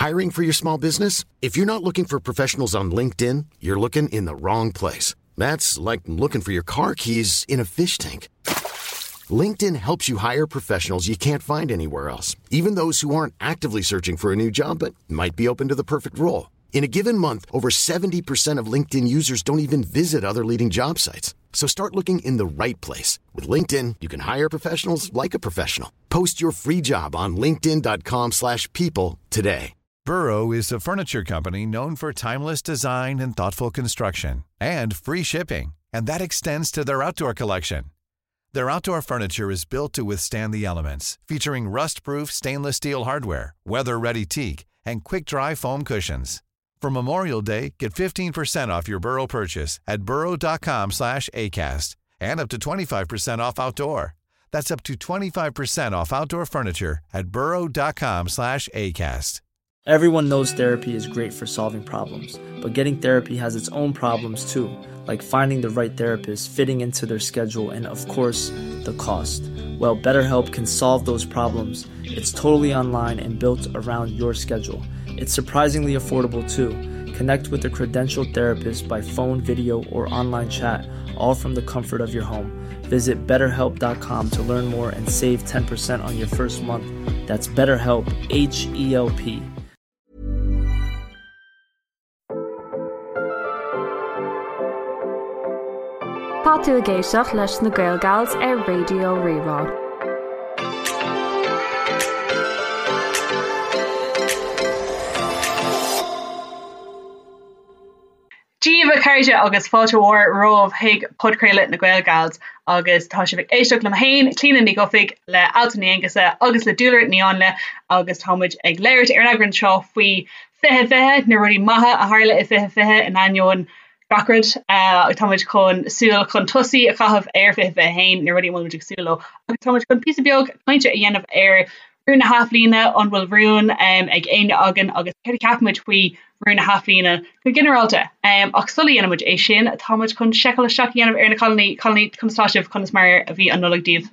Hiring for your small business? If you're not looking for professionals on LinkedIn, you're looking in the wrong place. That's like looking for your car keys in a fish tank. LinkedIn helps you hire professionals you can't find anywhere else, even those who aren't actively searching for a new job but might be open to the perfect role. In a given month, over 70% of LinkedIn users don't even visit other leading job sites. So start looking in the right place. With LinkedIn, you can hire professionals like a professional. Post your free job on linkedin.com slash people today. Burrow is a furniture company known for timeless design and thoughtful construction and free shipping, and that extends to their outdoor collection. Their outdoor furniture is built to withstand the elements, featuring rust-proof stainless steel hardware, weather-ready teak, and quick-dry foam cushions. For Memorial Day, get 15% off your Burrow purchase at burrow.com slash ACAST and up to 25% off outdoor. That's up to 25% off outdoor furniture at burrow.com slash ACAST. Everyone knows therapy is great for solving problems, but getting therapy has its own problems too, like finding the right therapist, fitting into their schedule, and of course, the cost. Well, BetterHelp can solve those problems. It's totally online and built around your schedule. It's surprisingly affordable too. Connect with a credentialed therapist by phone, video, or online chat, all from the comfort of your home. Visit betterhelp.com to learn more and save 10% on your first month. That's BetterHelp, H E L P. Tá tú ag éisteacht leis na Gael Gals ar Raidió Rí-Rá. Dia daoibh a chairde agus fáilte mhór romhaibh chuig podchraoladh na Gael Gals agus tá sibh ag éisteacht liom féin, Clíona Ní Dhufaigh, le Altan Ní Aonghusa agus le Dúlra Ní Áinle agus tá muid ag labhairt ar an eagrán seo faoi 2020, na rudaí maithe a tharla i 2020 in ainneoin gach rud. Tá muid chun súil chun tosaigh a chaitheamh ar 2021, na rudaí a bhfuil muid ag súil leo agus tá muid chun píosa beag cainte a dhéanamh ar rún na hathbhliana, an bhfuil rún ag éinne againn agus céard a cheapann muid faoi rún na hathbhliana go ginearálta. Ach sula dhéanann muid é sin, tá muid chun seiceáil isteach a dhéanamh ar na cailíní. Cailíní, conas tá sibh? Conas mar a bhí an Nollaig daoibh?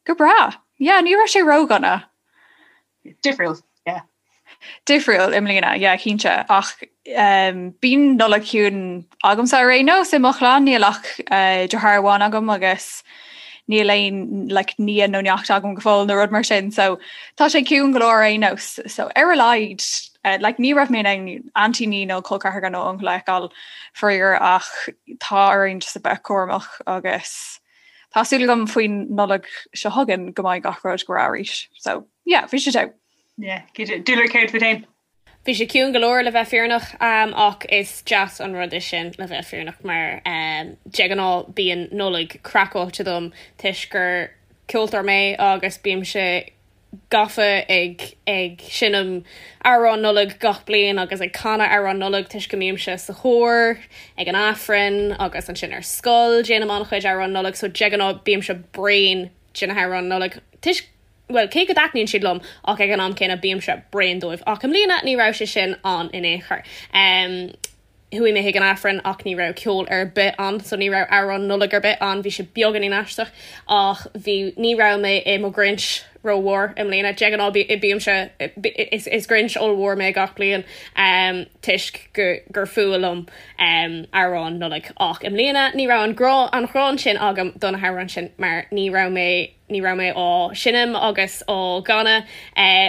Go breá. Yeah, ní raibh sé ródhona. Difriúil, yeah. Difriúil i mbliana, yeah, cinnte. Ach um, bíonn Nollaig ciúin agamsa ar aon nós i mo chlann, níl ach uh, deartháir amháin agam agus níl aon like, nia nó neacht agam go fóill nó rud mar sin, so tá sé ciúin go leor ar aon nós. So ar a laghad, uh, like, ní raibh mé in ann aintíní nó col ceathracha nó uncail a fheiceáil faraor ach tá orainn just a bheith cúramach agus Tá súil agam faoin Nollaig seo chugainn go mbeidh gach rud go breá arís. So, yeah, bhí sé togha. Yeah, Dúlra céard fút féin? Bhí sé ciúin go leor le bheith fírinneach ach is deas an rud é sin le bheith fírinneach mar de ghnáth bíonn Nollaig craiceáilte dom toisc gur ceoltóir mé agus bímse gafa ag ag seinm amhráin Nollag gach bliain agus ag canadh amhráin Nollag toisc go mbímse sa chór ag an Aifreann agus ansin ar scoil déanaim an-chuid amhráin Nollag so de ghnáth bímse bréan de na hamhráin Nollag toisc bhuel cé go dtaitníonn siad liom ach ag an am céanna bímse bréan dóibh ach i mbliana ní raibh sé sin ann in aon chor. Chuaigh mé chuig an Aifreann ach ní raibh ceol ar bith ann so ní raibh amhrán Nollag ar bith ann, bhí sé beagáinín aisteach ach bhí, ní raibh mé i mo Ghrinch rómhór i mbliana. De ghnáth bímse, is Grinch ollmhór mé gach bliain toisc gur fuath liom amhráin Nollag ach i mbliana ní raibh an grá, an ghráin sin agam do na hamhráin sin mar ní raibh mé Ní raibh mé á seinm agus á gcanadh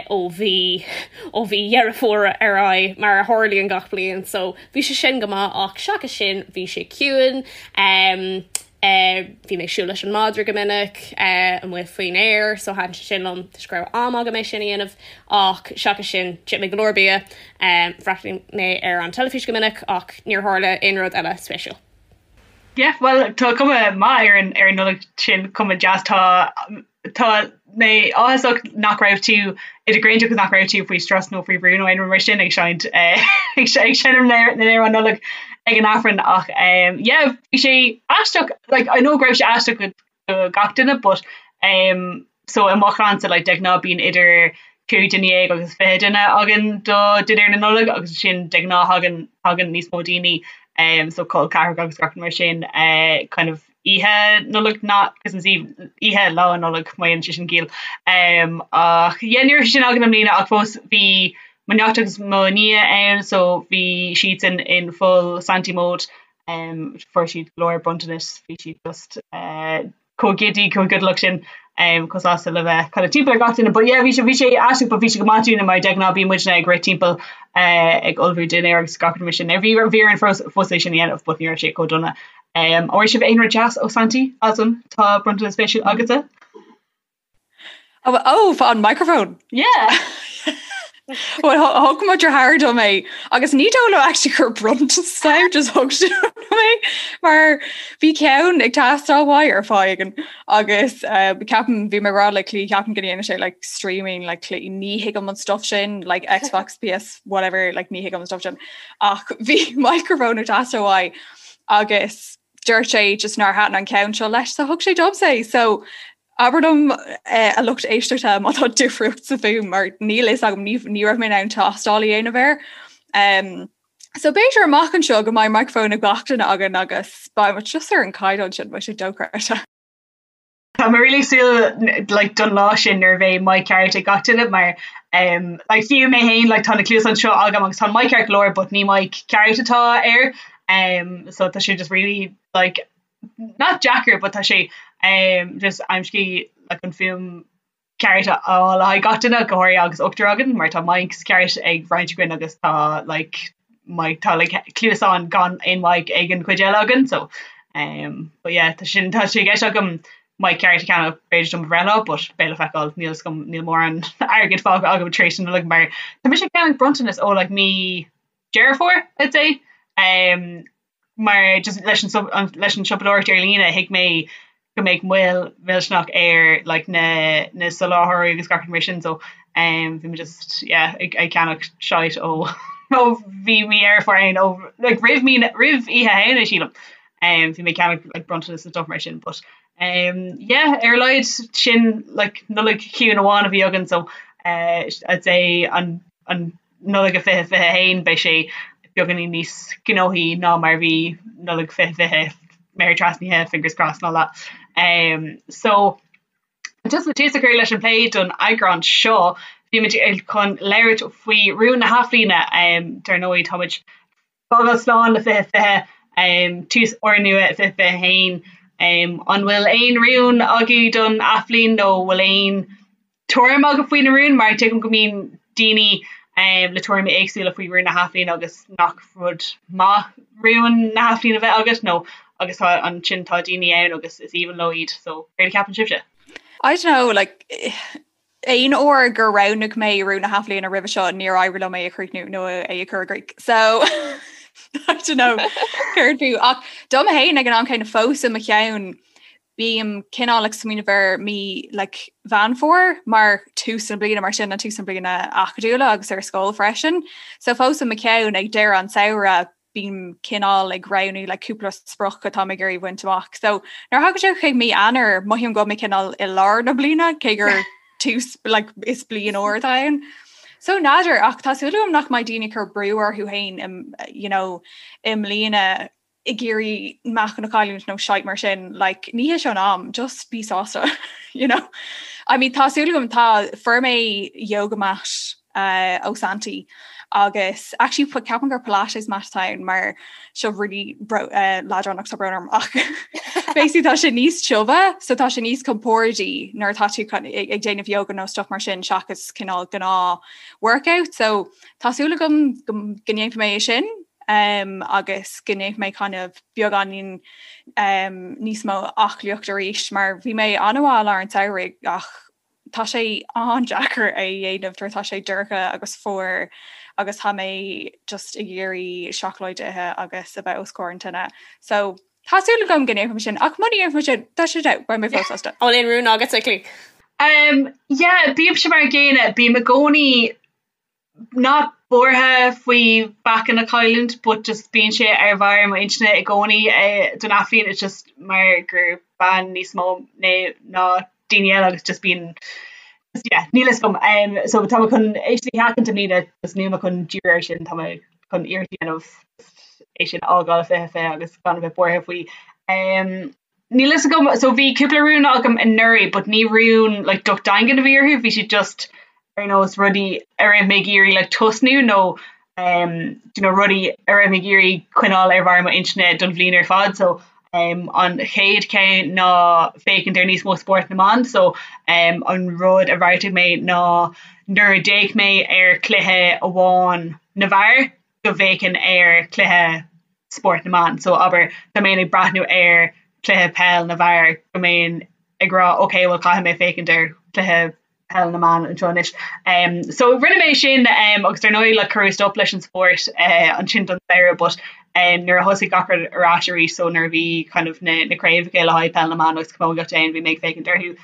ó mhí ó mhí Dheireadh Fómhair ar aghaidh, mar a tharlaíonn gach bliain, so bhí sé sin go maith ach seachas sin bhí sé ciúin. Bhí mé ag siúl leis an madra go minic amuigh faoin aer so thaitin sé sin liom toisc go raibh am agam é sin a dhéanamh ach seachas sin d'ith mé go leor bia, bhreathnaigh mé ar an teilifís go minic ach níor tharla aon rud eile spéisiúil. Yeah, bhuel tá cuma maith ar an ar an Nollaig sin, cuma deas. Tá tá mé áthasach nach raibh tú i do Ghrinch agus nach raibh tú faoi strus nó faoi bhrú nó aon rud mar sin ag seinnt eh, ag seinm na n-amhrán Nollag ag an Aifreann ach um, yeah, bhí sé aisteach like, I know go raibh sé aisteach go do gach duine but um, so i mo chlannsa like, de ghnáth bíonn idir 15 duine agus 20 duine againn do dinnéar na Nollag agus sin de ghnáth thagann thagann níos mó daoine um, so col ceathracha agus gach mar sin uh, kind of oíche Nollag not Christmas Eve oíche lá Nollag má dhéanann sé sin ciall um, ach yeah, ní raibh sin againn i mbliana ach fós bhí. mo neacht agus mo nia ann so bhí siadsan in full Santy mode um fuair siad go leor bronntanas bhí siad just uh chomh giddy chomh giodalach sin um chomh sásta le bheith kind of timpeall ar gach duine but yeah bhí sé bhí sé aisteach but bhí sé go maith dúinne mar de ghnáth bíonn muidne ag rith timpeall uh ag ullmhú dinnéar agus gach rud mar sin. Now bhí bhí orainn fós fós é sin a dhéanamh but ní raibh sé chomh dona. Um an bhfuair sibh aon rud deas ó Santy Altan tá bronntanas spéisiúil agatsa? Oh, oh, an microphone. Yeah. Well, thug mo dheartháir dom é agus ní dóigh liom actually gur bronntanas é just thug sé dom é mar bhí ceann ag teastáil uaidh ar fáth éigin agus uh, ceapaim bhí mé ag rá le Clí ceapaim go ndéanann sé like streaming like Clí ní thuigim an stuff sin like Xbox PS whatever like ní thuigim an stuff sin ach bhí microphone ag teastáil uaidh agus dúirt sé just nár thaitin an ceann seo leis so thug sé domsa é so Abair liom a lucht éisteachta má tá difríocht sa bhfuaim mar níl fhios agam ní raibh mé in ann tástáil a dhéanamh air. Um, so b'fhéidir amach anseo go mbeidh microphone ag gach duine againn agus beidh muid just ar an caighdeán sin beidh sé dochreidte. Tá mé really súil like, don lá sin nuair a bheidh mic ceart ag gach duine mar um, like, fiú mé féin like, tá na cluasáin seo agam agus tá mic ceart go leor but ní mic ceart atá air um, so tá sé just really like, not deacair but tá sé um, just aimsí like, an fuaim ceart a fháil le haghaidh gach duine go háirithe agus ochtar againn mar tá mics ceart ag roinnt againn agus tá like, mic tá like, cluasáin gan aon mic ag an chuid eile againn so um, but yeah, tá sin tá sé i gceist agam mic ceart a cheannach b'fhéidir dom bhreithlá but beidh le feiceáil níl 'fhios agam níl mórán airgead fágtha agam tar éis na Nollag mar tá mise ag ceannach bronntanas ó like, mí Deireadh Fómhair I'd say um, mar just leis an leis an siopadóireacht ar líne thuig mé go mbeadh moill mhillteanach ar like na na soláthróirí agus gach rud mar sin so um bhí mé just yeah ag ag ceannach shite ó ó bhí mí Dheireadh Fómhair ann ó like roimh mí roimh Oíche Shamhna sílim um bhí mé ag ceannach like bronntanas and stuff mar sin but um yeah ar a laghad sin like Nollaig chiúin amháin a bhí againn so uh I'd say an an Nollaig 2021 beidh sé beagáinín níos gnóthaí ná mar a bhí Nollaig 2020, méar trasnaithe, fingers crossed and all that. Um, so just le tús a chur leis an plé don eagrán seo, bhí muid chun labhairt faoi rúin na hathbhliana. Um, dar ndóigh táimid fágáil slán le 2020, um, tús úrnua 2021. Um, an bhfuil aon rún agaibh don athbhliain nó bhfuil aon tuairim agaibh faoi na rúin mar tuigim go mbíonn daoine um, le tuairimí éagsúla faoi rúin na hathbhliana agus nach rud maith rúin na hathbhliana a bheith agat nó agus tá ansin tá daoine ann agus is aoibhinn leo iad so céard a cheapann sibhse? I don't know like aon uair gur roghnaigh mé rún na hathbhliana roimhe seo níor éirigh liom é a chríochnú nó é a chur i gcrích. So I don't know céard fiú ach dom féin ag an am céanna fós i mo cheann bím cineál ag smaoineamh ar mí like, Mheán Fómhair mar tús na bliana mar sin an tús na bliana acadúla agus ar scoil freisin. So fós i mo cheann ag deireadh an samhradh bím cineál ag roghnú like, cúpla sprioc atá mé ag iarraidh bhaint amach. So nuair a thagann sé chuig mí Eanáir mothaím go bhfuil mé cineál i lár na bliana cé gur tús like, is bliain úr atá ann. So n'fheadar ach tá súil agam nach mbeidh daoine ag cur brú orthu féin you know, i mbliana ag iarraidh meáchan a chailliúint nó shite mar sin like ní hé seo an am just bí sásta you know I mean tá súil agam tá fuair mé yoga mat uh, ó Santy agus actually ceapaim gur Pilates mat atá ann mar seo really bro, uh, leadránach tá brón orm ach basically tá sé níos tiubhe so tá sé níos compordaí nuair atá tú ag ag déanamh yoga nó stuff mar sin seachas cineál gnáth workout so tá súil agam go go ndéanfaidh mé é sin um, agus go ndéanfaidh mé kind of beagáinín um, níos mó aclaíocht arís mar bhí mé an-mhaith i lár an tsamhraidh ach tá sé an-deacair é a dhéanamh nuair atá sé dorcha agus fuar agus tá mé just ag iarraidh seacláid a ithe agus a bheith os comhair an tine. So tá súil agam go ndéanfaidh mé sin ach muna ndéanfaidh mé sin tá sé dead beidh mé fós sásta. An bhfuil aon rún agat a Chlí? Um, yeah, bímse mar an gcéanna, bím i gcónaí not buartha faoi mheáchan a chailliúint but just bíonn sé ar bharr mo intinne i gcónaí don athbhliain it's just mar gur bean níos mó mé ná daoine eile agus just bíonn just yeah níl fhios agam um, so tá mé chun é sin a sheachaint i mbliana just níl mé chun díriú air sin tá mé chun iarracht a dhéanamh é sin a fhágáil 2020 agus gan a bheith buartha faoi um, Níl fhios agam, so bhí cúpla rún agam anuraidh but ní rún like docht daingean a bhí orthu, bhí siad just. ar nós rudaí a raibh mé ag iarraidh like tosnú nó um do you know rudaí a raibh mé ag iarraidh coinneáil ar bharr mo intinne don bhliain ar fad so um an chéad cheann ná féachaint ar níos mó spórt na mban so um an rud a bheartaigh mé ná nuair a d'fhéach mé ar chluiche amháin na bhfear go bhféachfainn ar chluiche spórt na mban so abair dá mbeinn ag breathnú ar chluiche peil na bhfear go mbeinn ag rá ok well caithfidh mé féachaint ar chluiche peil na mban anseo anois. Um, so rinne mé sin um, agus ar ndóigh like, cuireadh stop leis an spórt uh, ansin don samhradh but um, nuair a thosaigh gach rud ar ais arís so nuair a bhí kind of na, na craobhacha le haghaidh peil na mban agus camógaíocht ann bhí mé ag féachaint orthu.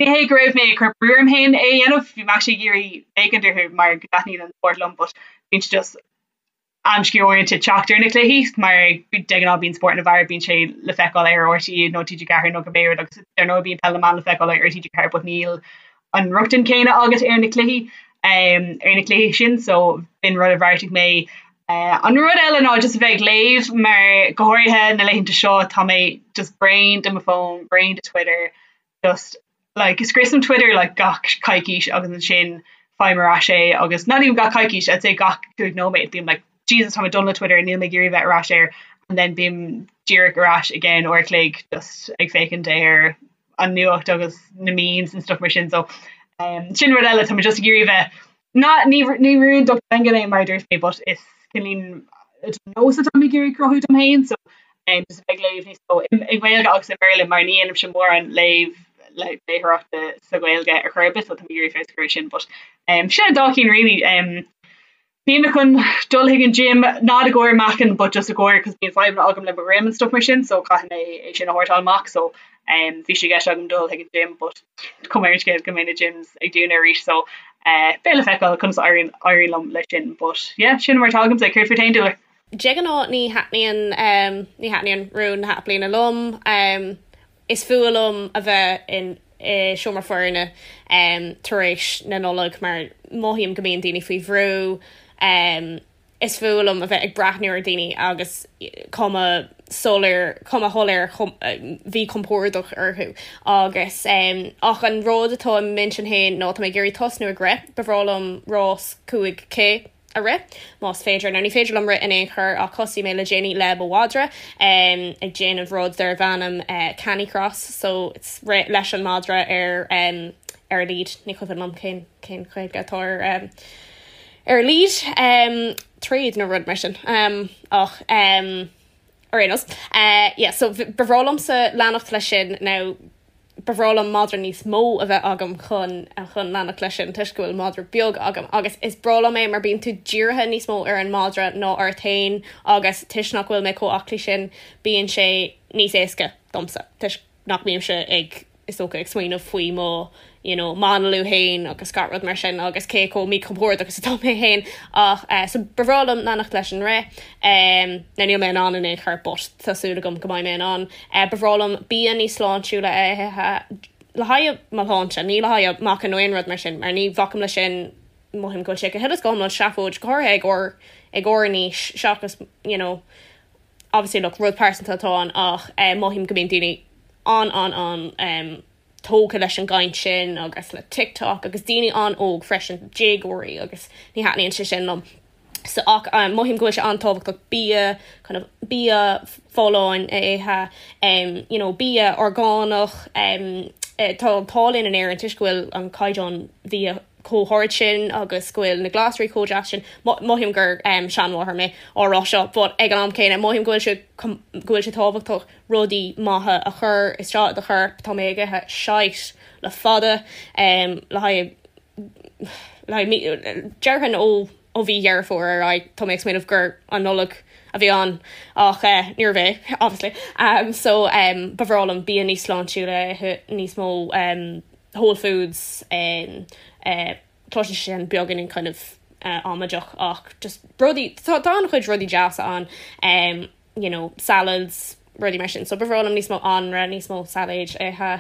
Ní hé go raibh mé ag cur brú orm féin é a dhéanamh, bhí mé actually ag iarraidh féachaint orthu mar go dtaitníonn an spórt liom but bíonn sé just amscaí uaireanta teacht ar na cluichí mar de ghnáth bíonn spórt na bhfear bíonn sé le feiceáil ar RTÉ nó TG4 nó cibé rud agus ar ndóigh bíonn peil na mban le feiceáil ar TG4 but níl an rochtain céanna agat ar na cluichí um, ar na cluichí sin so b'in rud a bheartaigh mé. Uh, an rud eile ná just a bheith ag léamh mar go háirithe na laethanta seo tá mé just bréan de mo fón, bréan de Twitter, just like scriosaim Twitter like gach coicís agus ansin faighim ar ais é agus not even gach coicís I'd say gach 5 nóiméad bím like Jesus tá mé done le Twitter níl mé ag iarraidh bheith ar ais air and then bím díreach ar ais i gceann uair a chloig just ag féachaint ar an nuacht agus na memes and stuff mar sin so um, sin rud eile tá mé just ag iarraidh bheith Ná, ní ní rún docht daingean é mar a dúirt mé but is cineál nós atá mé ag iarraidh cruthú dom féin so um, just a bheith ag léamh níos mó i nGaeilge agus i mBéarla mar ní dhéanaimse mórán léamh léitheoireachta sa Ghaeilge ar chor ar bith so tá mé ag iarraidh feabhas a chur air sin but um, sin an dá cinn really um, Bhí mé chun dul chuig an gym not i gcomhair meáchan but just i gcomhair cos bíonn fadhbanna agam le mo dhroim and stuff mar sin so caithfidh mé é sin a shórtáil amach so um, bhí sé i gceist agam dul chuig an gym but cuma ar an scéal go mbeidh na gyms ag dúnadh arís so eh, beidh le feiceáil conas a éiríonn éiríonn liom leis sin but yeah sin mar atá agamsa céard fút féin Dúlra? De ghnáth ní thaitníonn um, ní thaitníonn rún na hathbhliana liom. Um, is fuath liom a bheith in i seomra foirne um, tar éis na Nollag mar mothaím go mbíonn daoine faoi bhrú. Um, is fuath liom a bheith ag breathnú ar dhaoine agus cuma soiléir, cuma shoiléir mhíchompordach orthu agus um, ach an rud atá i m'intinn féin ná tá mé ag iarraidh tosnú ag rith, ba bhreá liom rás 5K a rith, más féidir. Now ní féidir liom rith in aon chor ach thosaigh mé le déanaí le mo mhadra um, ag déanamh rud darb ainm uh, Canicross so it's rith leis an madra ar um, ar lead ní cuimhin liom cén cén Ghaeilge atá ar um, ar lead um, tréad nó rud mar sin um, ach um, ar aon nós. Uh, yeah, so ba bhreá liomsa leanacht leis sin now ba bhreá liom madra níos mó a bheith agam chun chun leanacht leis sin toisc go bhfuil madra beag agam agus is breá liom é mar bíonn tú dírithe níos mó ar an madra ná ort féin agus toisc nach bhfuil mé chomh aclaí sin bíonn sé níos éasca domsa toisc nach mbímse ag is dócha ag smaoineamh faoi mo you know m'análú féin agus gach rud mar sin agus cé chomh míchompordach is atá mé féin ach eh, so ba bhreá liom leanacht leis an rith um, now níl mé in ann in aon chor but tá súil agam go mbeidh mé in ann. Eh, ba bhreá liom bia níos sláintiúla a ithe le haghaidh mo shláinte, ní le haghaidh meáchan nó aon rud mar sin mar ní bhacaim leis sin mothaím go bhfuil sé go huile is go hiomlán seafóid go háirithe ag ár ag ár n-aois seachas you know obviously look rud pearsanta atá ann ach eh, mothaím go mbíonn daoine an an an um, tógtha leis an gcaint sin agus le TikTok agus daoine an-óg freisin, déagóirí agus ní thaitníonn sé sin liom. So ach um, mothaím go bhfuil sé an-tábhachtach bia kind of bia folláin a ithe, um, you know, bia orgánach, um, eh, tá an t-ádh linn in Éirinn toisc go bhfuil an caighdeán bhia chomh hard sin agus go bhfuil na glasraí chomh deas sin. Mothaím gur um, seanmháthair mé á rá seo, but ag an am céanna mothaím go bhfuil sé go bhfuil sé tábhachtach rudaí maithe a chur isteach i do chorp. Tá mé ag ithe shite le fada um, le haghaidh le haghaidh déarfainn ó ó mhí Dheireadh Fómhair ar aghaidh tá mé ag smaoineamh gur an Nollaig a bhí ann ach eh, níorbh é obviously. Um, so um, ba bhreá liom bia níos sláintiúla a ithe níos mó um, whole foods um, uh, cloiseann sé sin beagáinín kind of uh, amaideach ach just rudaí tá tá an-chuid rudaí deasa ann um, you know, salads, rudaí mar sin. So ba bhreá liom níos mó anraith, níos mó sailéid a ithe.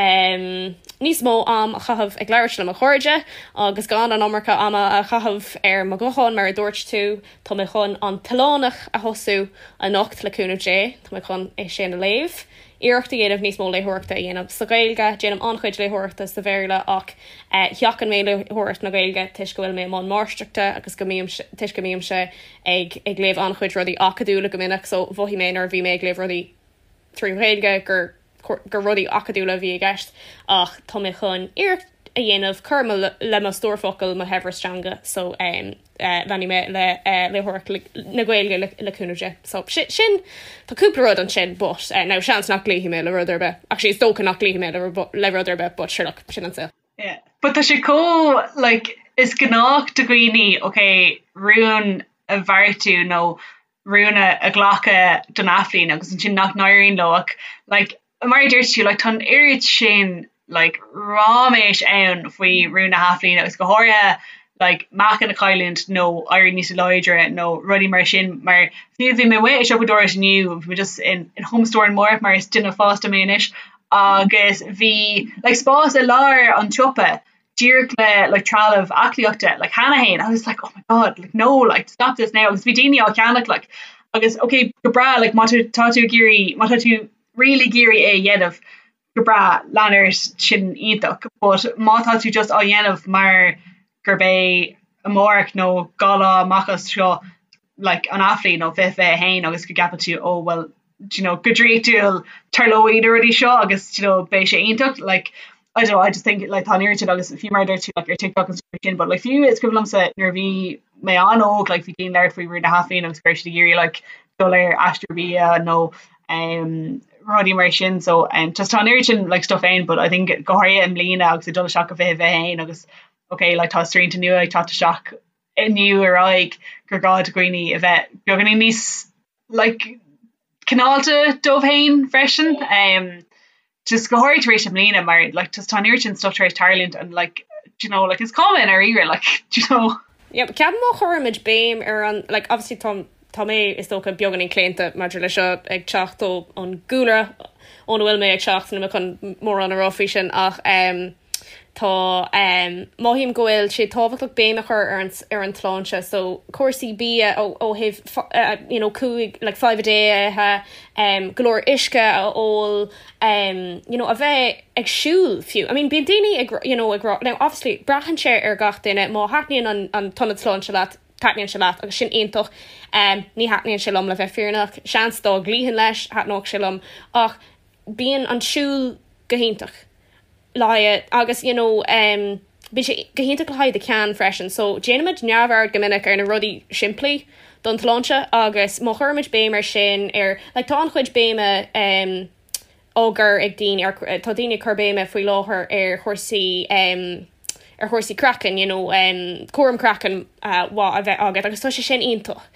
Um, níos mó am a chaitheamh ag labhairt le mo chairde agus gan an iomarca ama a chaitheamh ar mo ghuthán mar a dúirt tú. Tá mé chun An tOileánach a thosú anocht le cúnamh Dé. Tá mé chun é sin a léamh. Iarracht a dhéanamh níos mó léitheoireachta a dhéanamh sa Ghaeilge. Déanaim an-chuid léitheoireachta sa Bhéarla ach sheachain mé léitheoireacht na Gaeilge toisc go bhfuil mé i mbun máistreachta agus go mbím toisc go mbímse ag ag léamh an-chuid rudaí acadúla go minic so mhothaigh mé nuair a bhí mé ag léamh rudaí trí Ghaeilge gur gur rudaí acadúla a bhí i gceist ach tá mé chun iarracht a dhéanamh cur le mo stór focal, mo shaibhreas teanga so leanfaidh mé le léitheoireacht na Gaeilge le cúnamh Dé. So sin tá cúpla rud ansin but now seans nach gcloífidh mé le rud ar bith. Actually is dócha nach gcloífidh mé le rud ar bith but sure look sin an saol. Yeah but tá sé chomh like is gnách do dhaoine ok rún a bheartú nó rún a ghlacadh don athbhliain agus ansin nach n-éiríonn leo ach like mar a dúirt tú like tá an oiread sin like ráiméis ann faoi rún na hathbhliana agus go háirithe like meáchan a chailliúint nó éirí níos láidre nó rudaí mar sin mar fiú bhí mé amuigh ag siopadóireacht inniu bhí mé just in in Home Store in Moore mar is duine fásta mé anois agus bhí like spás i lár an tsiopa díreach le like trealamh aclaíochta like cheana féin I was like oh my god like no like stop this now agus bhí daoine á cheannach like agus ok go breá like má tá tú ag iarraidh má tá tú really ag iarraidh é a dhéanamh go breá lean ort sin iontach but má tá tú just á dhéanamh mar gurb é amárach nó 2 lá amach as seo like an athbhliain nó 2021 agus go gceapann tú oh well do you know go draíochtúil tarlóidh na rudaí seo agus do you know beidh sé iontach like I don't know I just think like tá an oiread sin agus fiú mar a dúirt tú like ar TikTok and stuff sin but like fiú is cuimhin liomsa nuair a bhí mé an-óg like bhí daoine ag labhairt faoi rún na hathbhliana agus go raibh siad ag iarraidh like dul ar aistear bia nó um rudaí mar sin so um just tá an oiread sin like stuff ann but I think go háirithe i mbliana agus ag dul isteach go 2021 agus okay like tá srianta nua ag teacht isteach inniu ar aghaidh gur gá do dhaoine a bheith beagáinín níos like cineálta dóibh féin freisin um just go háirithe tar éis i mbliana mar like just tá an oiread sin stuff tar éis tarlúint and like do you know like is cuma i ndáiríre like do you know. Yeah, ceapaim má chuirimid béim ar an like obviously tá tá mé is dócha beagáinín claonta maidir le seo ag teacht ó an gcúlra óna bhfuil mé ag teacht níl mé chun mórán a rá faoi sin ach um Tá, mothaím go bhfuil sé tábhachtach béim a chur ar an ar an tsláinte so cúrsaí bia ó ó thaobh you know cúig like five a day a ithe, go leor uisce a ól, you know a bheith ag siúl fiú. I mean bíonn daoine ag you know ag rá now obviously braitheann sé ar gach duine má thaitníonn an an t-ionad sláinte leat taitníonn sé leat agus sin iontach. Ní thaitníonn sé liom le bheith fírinneach, seans dá gcloífinn leis thaitneodh sé liom ach bíonn an siúl go hiontach. le haghaidh agus you know um bíonn sé go hiontach le haghaidh do cheann freisin so déanaimid neamhaird go minic ar na rudaí simplí don tsláinte agus má chuirimid béim ar sin ar like tá an-chuid béime um á gcur ag daoine ar tá daoine ag cur béime faoi láthair ar chúrsaí um ar chúrsaí craicinn you know um cúram craicinn uh, mhaith a bheith agat agus tá sé sin iontach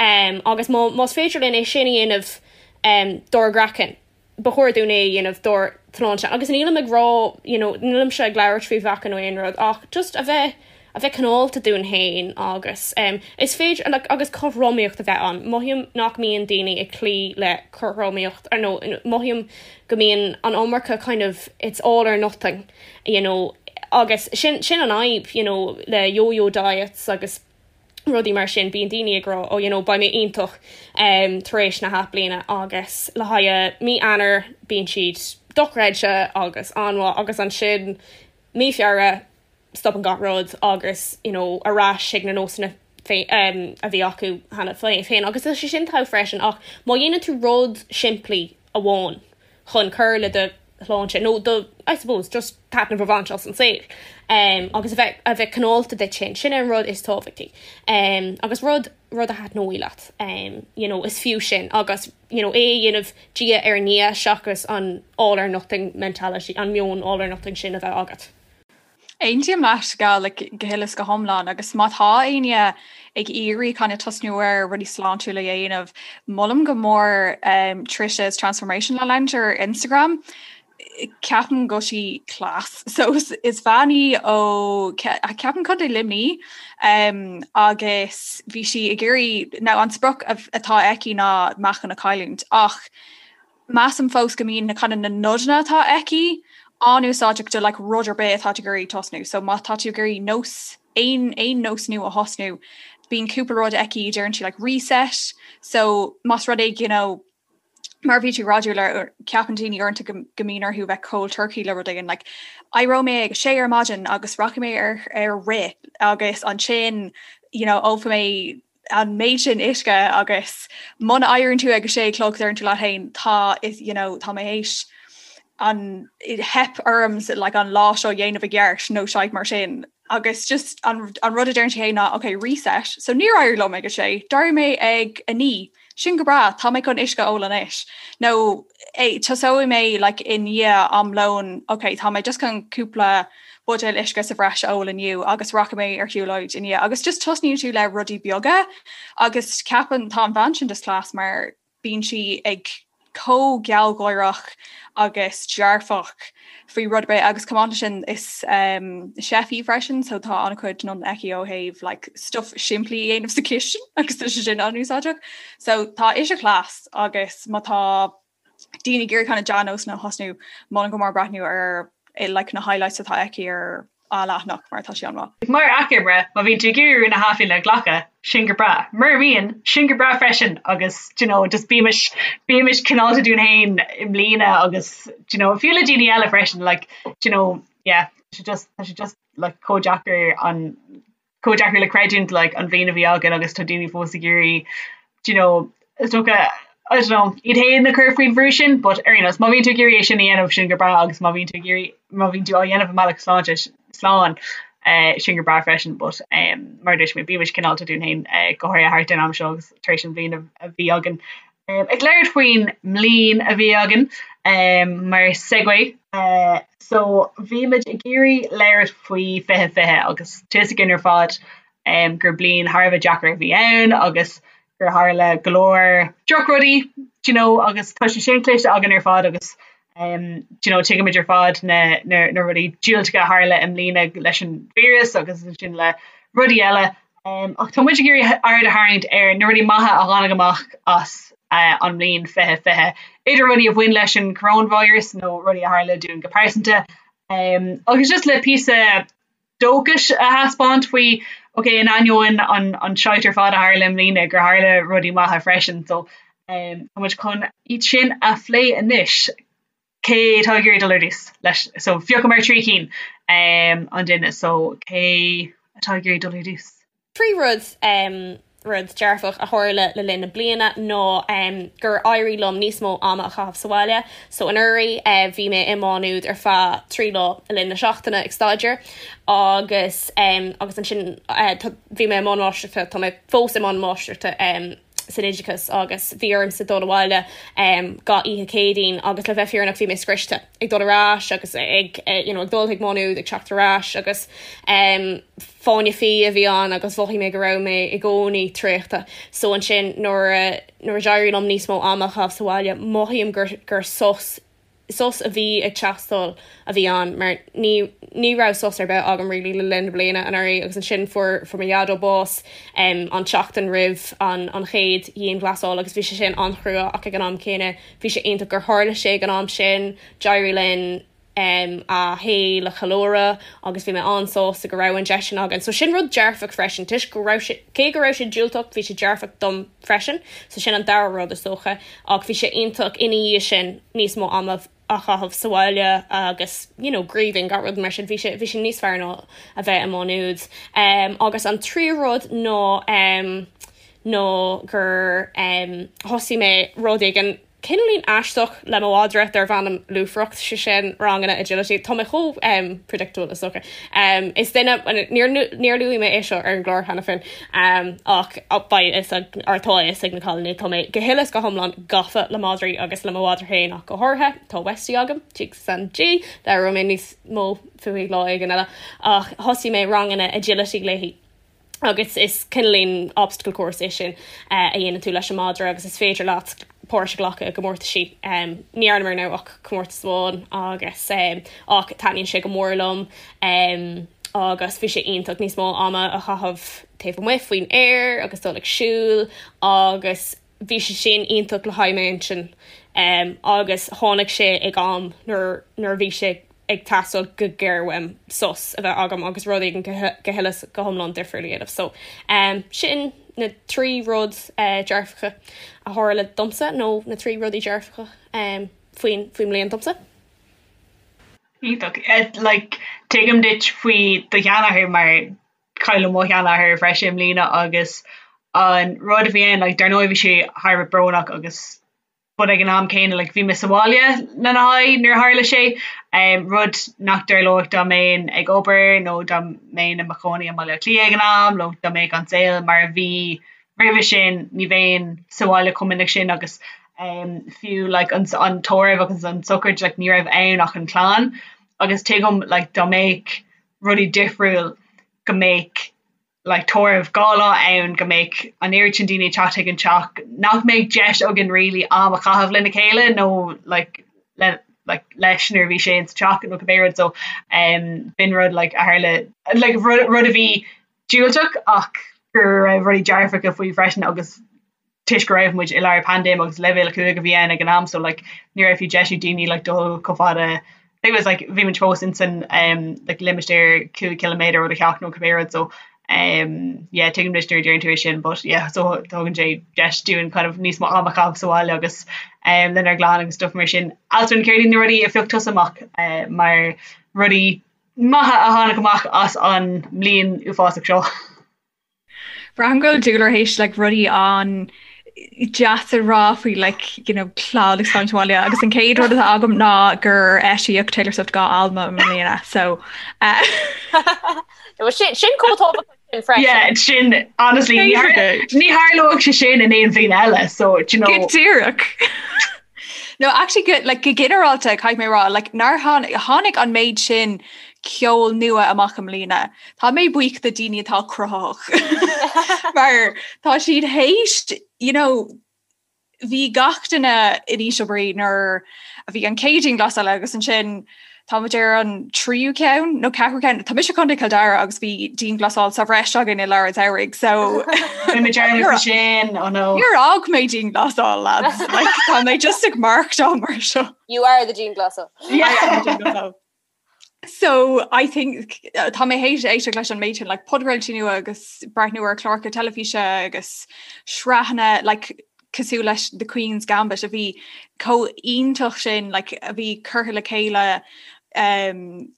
um agus má más féidir linn é sin a dhéanamh um dár gcraiceann ba chóir dúinn é a dhéanamh dár tsláinte agus nílim ag rá you know nílimse ag labhairt faoi mheáchan nó aon rud ach just a bheith a bheith cineálta dúinn féin agus um, is féidir like, agus cothromaíocht a bheith ann. Mothaím nach mbíonn daoine ag cloí le cothromaíocht ar nó mothaím go mbíonn an iomarca kind of it's all or nothing you know agus sin sin an fhadhb you know le yo-yo diets agus rudaí mar sin, bíonn daoine ag rá oh you know beidh mé iontach um tar éis na hathbhliana agus le haghaidh mí Eanáir bíonn siad dochreidte agus an-mhaith agus ansin mí Feabhra stopann gach rud agus you know ar ais ag na nósanna um a bhí acu cheana féin agus tá sé sin togha freisin ach má dhéanann tú rud simplí amháin chun cur le do shláinte nó do, I suppose, just taitneamh a bhaint as an saol um, agus a bheith, a bheith cineálta duit féin, sin an rud is tábhachtaí. Um, agus rud, rud a thaitneoidh leat, um, you know, is fiú sin agus you know, é a dhéanamh diaidh ar ndiaidh seachas an all or nothing mentality, an meon all or nothing sin a bheith agat. Aontaím leat go like, go huile is go hiomlán agus má tá éinne ag iarraidh kind of tosnú ar rudaí sláintiúla a dhéanamh, molaim go mór um, Trisha's Transformation Lounge ar Instagram. Ceapaim go bhfuil sí class. So is, is bean í ó ceapaim Contae Luimnigh um, agus bhí sí ag iarraidh now an sprioc atá aici ná meáchan a chailliúint ach measaim fós go mbíonn na kind of na nodanna atá aici. an-úsáideach do like rud ar bith atá tú ag iarraidh tosnú. So má tá tú ag iarraidh nós aon aon nós nua a thosnú, bíonn cúpla rud aici deireann sí like reset. So más rud é you know, mar bhí tú ag rá le ceapann daoine uaireanta go go mbíonn orthu bheith cold turkey le rud éigin like éireoidh mé ag a sé ar maidin agus rachaidh mé ar ar rith agus ansin you know ólfaidh mé an méid sin uisce agus muna éiríonn tú ag a sé a chlog deireann tú leat féin tá is you know tá mé théis an theip orm like an lá seo dhéanamh i gceart nó shite mar sin agus just an, an rud a deireann sí ná ok reset so níor éirigh liom ag a sé d'éirigh mé ag a 9 sin go breá tá mé chun uisce a ól anois nó tosóidh mé like i ndiaidh am lóin ok tá mé just chun cúpla buidéal uisce sa bhreis a ól inniu agus rachaidh mé ar shiúlóid i ndiaidh agus just tosnaíonn tú le rudaí beaga agus ceapaim tá an bhean sin just class mar bíonn sí ag chomh gealgháireach agus dearfach faoi rud ar bith agus chomh maith leis sin is um, chef í freisin so tá an-chuid nodanna aici ó thaobh like, stuff simplí a dhéanamh sa chistin agus tá sé sin an-úsáideach. So tá ise class agus má tá daoine ag iarraidh kind of dea-nósanna a thosnú molaim go mór breathnú ar eh, like, na highlights atá aici ar a leathanach mar tá sé an-mhaith. Mar achoimre, má bhíonn tú ag iarraidh rún na hAthbhliana a ghlacadh, sin go breá. Mura mbíonn, sin go breá freisin agus do you know, just bímis bímis cineálta dúinn féin i mbliana agus do you know, fiú le daoine eile freisin like do you know, yeah, tá sé just tá sé just like chomh deacair an chomh deacair le creidiúint like an bhliain a bhí againn agus tá daoine fós ag iarraidh do you know, is dócha I don't know, iad féin a chur faoin bhrú sin but ar aon nós má bhíonn tú ag iarraidh é sin a dhéanamh sin go breá agus má bhíonn tú ag iarraidh má bhíonn tú á dhéanamh i mbealach sláinte slán eh, sin go breá freisin but um, mar a dúirt mé bímis cineálta dúinn féin eh, go háirithe thart ar an am seo agus tar éis an bhliain a, a bhí againn. Um, ag labhairt faoin mbliain a bhí againn um, mar segue uh, so bhí muid ag iarraidh labhairt faoi 2020 agus tá a fhios againn ar fad um, gur bliain thar a bheith deacair a bhí ann agus gur tharla go leor drochrudaí do you know agus tá sé sin cloiste againn ar fad agus um, do you know tuigimid ar fad na, na, na rudaí diúltacha a tharla i mbliana leis an víreas agus ansin le rudaí eile. Um, ach tá muid ag iarraidh aird a tharraingt ar na rudaí maithe a tháinig amach as uh, an mbliain 2020, idir rudaí a bhain leis an coronavirus nó rudaí a tharla dúinn go pearsanta. Um, agus just le píosa dóchais a thaispeáint faoi ok in ainneoin an an shite ar fad a tharla i mbliana gur tharla rudaí maithe freisin so um, tá muid chun iad sin a phlé anois. Cé atá ag iarraidh dul ar dtús leis so phiocamar 3 cinn um, an duine so cé atá ag iarraidh dul ar dtús? 3 rud um, rud dearfach a tharla le linn na bliana ná um, gur éirigh liom níos mó ama a chaitheamh sa bhaile. So anuraidh uh, bhí mé i Má Nuad ar feadh 3 lá le linn na seachtaine ag staidéar agus um, agus ansin uh, bhí mé i mbun máistreachta, tá mé fós i mbun máistreachta um, san oideachas agus bhí ormsa dul abhaile um, gach oíche Céadaoin agus le bheith fírinneach bhí mé scriosta ag dul ar ais agus ag you know, ag dul chuig Má Nuad ag teacht ar ais agus um, fáinne fí a bhí ann agus mhothaigh mé go raibh mé i gcónaí traochta. So ansin nuair a nuair a d'éirigh liom níos mó ama a chaitheamh sa bhaile mothaím gur gur sos sos a bhí ag teastáil a bhí ann mar ní ní raibh sos ar bith agam really le linn na bliana anuraidh agus ansin fuair fuair mo dhaideo bás um, an tseachtain roimh an an chéad dhianghlasáil agus bhí sé sin an-chrua ach ag an am céanna bhí sé iontach gur tharla sé ag an am sin d'éirigh linn um, a shaol a cheiliúradh agus bhí mé an-sásta go raibh an deis sin againn. So sin rud dearfach freisin toisc go raibh sé cé go raibh sé diúltach bhí sé dearfach dom freisin, so sin an dara rud is dócha, ach bhí sé iontach ina dhiaidh sin níos mó ama a chaitheamh sa bhaile agus you know grieving gach rud mar sin bhí sé bhí sé níos fearr ná a bheith i Má Nuad. Um, agus an tríú rud ná um, ná gur um, thosaigh mé rud éigin Cineáilín aisteach le mo mhadra darb ainm Lúfaireacht, sé sin ranganna agility. Tá mé chomh um, predictable is dócha. Um, is duine, níor, níor luaigh mé é seo ar an gclár cheana féin, um, ach beidh a fhios ag, or tá a fhios ag na cailíní, tá mé go huile is go hiomlán gafa le madraí agus le mo mhadra féin ach go háirithe. Tá Westie agam, Jesus and G, labhróidh mé níos mó fúithi lá éigin eile, ach thosaigh mé ranganna agility léi. agus is cineáilín obstacle course é sin a dhéanann tú leis an madra agus is féidir leat páirt a ghlacadh i gcomórtaisí. Ní dhearnamar now ach comórtas amháin agus ach taitníonn sé go mór liom agus bhí sé iontach níos mó ama a chaitheamh taobh amuigh faoin aer agus dul ag siúl agus bhí sé sin iontach le haghaidh m'intinn agus tháinig sé ag am nuair nuair a bhí sé. ag teastáil go géar uaim sos a bheith agam agus rud éigin go huile is go hiomlán difriúil a dhéanamh. So sin na 3 rud dearfacha a tharla domsa nó na 3 rudaí dearfacha faoin faoin mbliain domsa. Iontach. Like tuigim duit faoi do sheanathair mar cailleadh mo sheanathair freisin i mbliana agus an rud a bhí ann like dar ndóigh bhí sé thar a bheith brónach agus but ag an am céanna like bhí mé sa bhaile lena haghaidh nuair a tharla sé, rud nach dtarlódh dá mbeinn ag obair nó dá mbeinn i mo chónaí i mBaile Átha Cliath ag an am nó dá mbeadh an saol mar a bhí roimhe sin, ní bheinn sa bhaile chomh minic sin agus fiú like an an tórramh agus an sochraid like ní raibh ann ach an chlann agus tuigim like dá mbeadh rudaí difriúil go mbeadh like tórramh 2 lá ann go mbeadh an oiread sin daoine ag teacht chuig an teach nach mbeadh deis againn really am a chaitheamh lena chéile nó like le like leis nuair a bhí sé insa teach nó cibé rud so um b'in rud like a tharla like rud rud a bhí diúltach ach go raibh rudaí dearfacha faoi freisin agus toisc go raibh muid i lár paindéim agus leibhéal 5 a bhí ann ag an am so like ní raibh fiú deis ag daoine like dul chomh fada I think it was like bhí muid fós in san um like limistéar 5 ciliméadar ó do theach nó cibé rud so um yeah tuigim duit nuair a deireann tú é sin but yeah so tugann sé deis dúinn kind of níos mó am a chaitheamh sa bhaile agus um lenár gclann agus stuff mar sin. Alswyn céard iad na rudaí a phioc tusa amach uh, mar rudaí maithe a tháinig amach as an mbliain uafásach seo? Braithim go bhfuil Dúlra théis like rudaí an-deas a rá faoi like you know clann agus fanacht abhaile agus an chéad rud atá agam ná gur eisíodh Taylor Swift 2 albam i mbliana so uh, sin sin chomh tábhachtach sin freisin. Yeah, sin honestly ní thar- ní tharlódh sé sin in aon bhliain eile so do you know Go díreach. No, actually go, like, go ginearálta caithfidh mé rá, like, nár tháinig, tháinig an méid sin ceol nua amach i mbliana. Tá mé buíoch do daoine atá cruthaitheach mar tá siad théis, you know, bhí gach duine in ísle brí nuair a bhí an chéad dianghlasáil agus ansin tá muid ar an tríú ceann nó ceathrú ceann. Tá mise i gContae Chill Dara agus bhí dianghlasáil sa bhreis againn i lár an tsamhraidh so sin oh no. Níor fhág mé dianghlasáil lads like, tá mé just ag maireachtáil mar seo. You are the dianghlasáil. Yeah. So I think uh, tá mé théis éisteacht leis an méid sin like, podchraoltaí nua agus breathnú ar chláracha teilifíse agus sraitheanna like, cosúil leis The Queen's Gambit a bhí chomh iontach sin like, a bhí curtha le chéile um,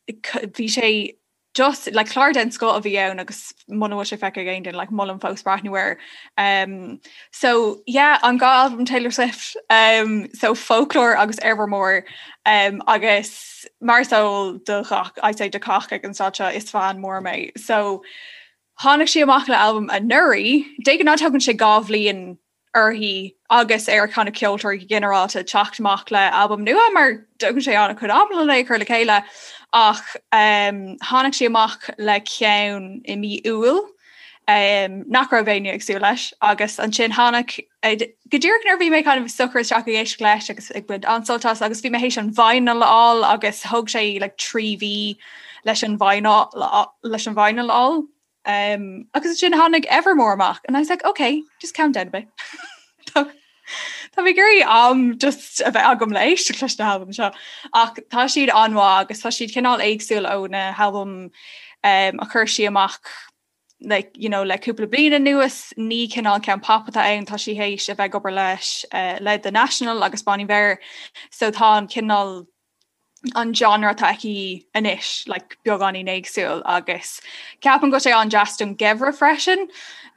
bhí sé just like clár den scoth a bhí ann agus muna bhfuil sé feicthe ag aon duine like molaim fós breathnú air. Um, so yeah, an dá albam Taylor Swift um, so Folklore agus Evermore um, agus mar is eol do ghach I'd say do cách ag an staid seo is fan mór mé. So tháinig sí amach le albam anuraidh, de ghnáth tógann sé 2 bhliain uirthi agus ar kind of ceoltóirí go ginearálta teacht amach le albam nua mar tógann sé an-chuid ama le é a chur le chéile ach um, tháinig sí amach le ceann i mí Iúil um, nach raibh éinne ag súil leis agus ansin tháinig eh, go díreach nuair bhí mé kind of socraithe isteach ag éisteacht leis agus ag baint an-sult as agus bhí mé théis an vinyl a fháil agus thóg sé like, 3 mhí leis an vinyl leis an vinyl a fháil. Um, agus ansin tháinig Evermore amach and I was like, okay, just calm down a bit. Tá Tá mé ag iarraidh am just a bheith agam le éisteacht leis na halbaim seo. Ach tá siad an-mhaith agus tá siad cineál éagsúil ó na halbaim um, a chuir sí amach like, you know, le cúpla bliain anuas ní cineál ceann pop atá ann tá sí théis a bheith ag obair leis uh, le The National agus Bon Iver so tá an cineál an genre atá aici anois like, beagáinín éagsúil agus ceapaim go bhfuil sé an-deas don gheimhreadh freisin.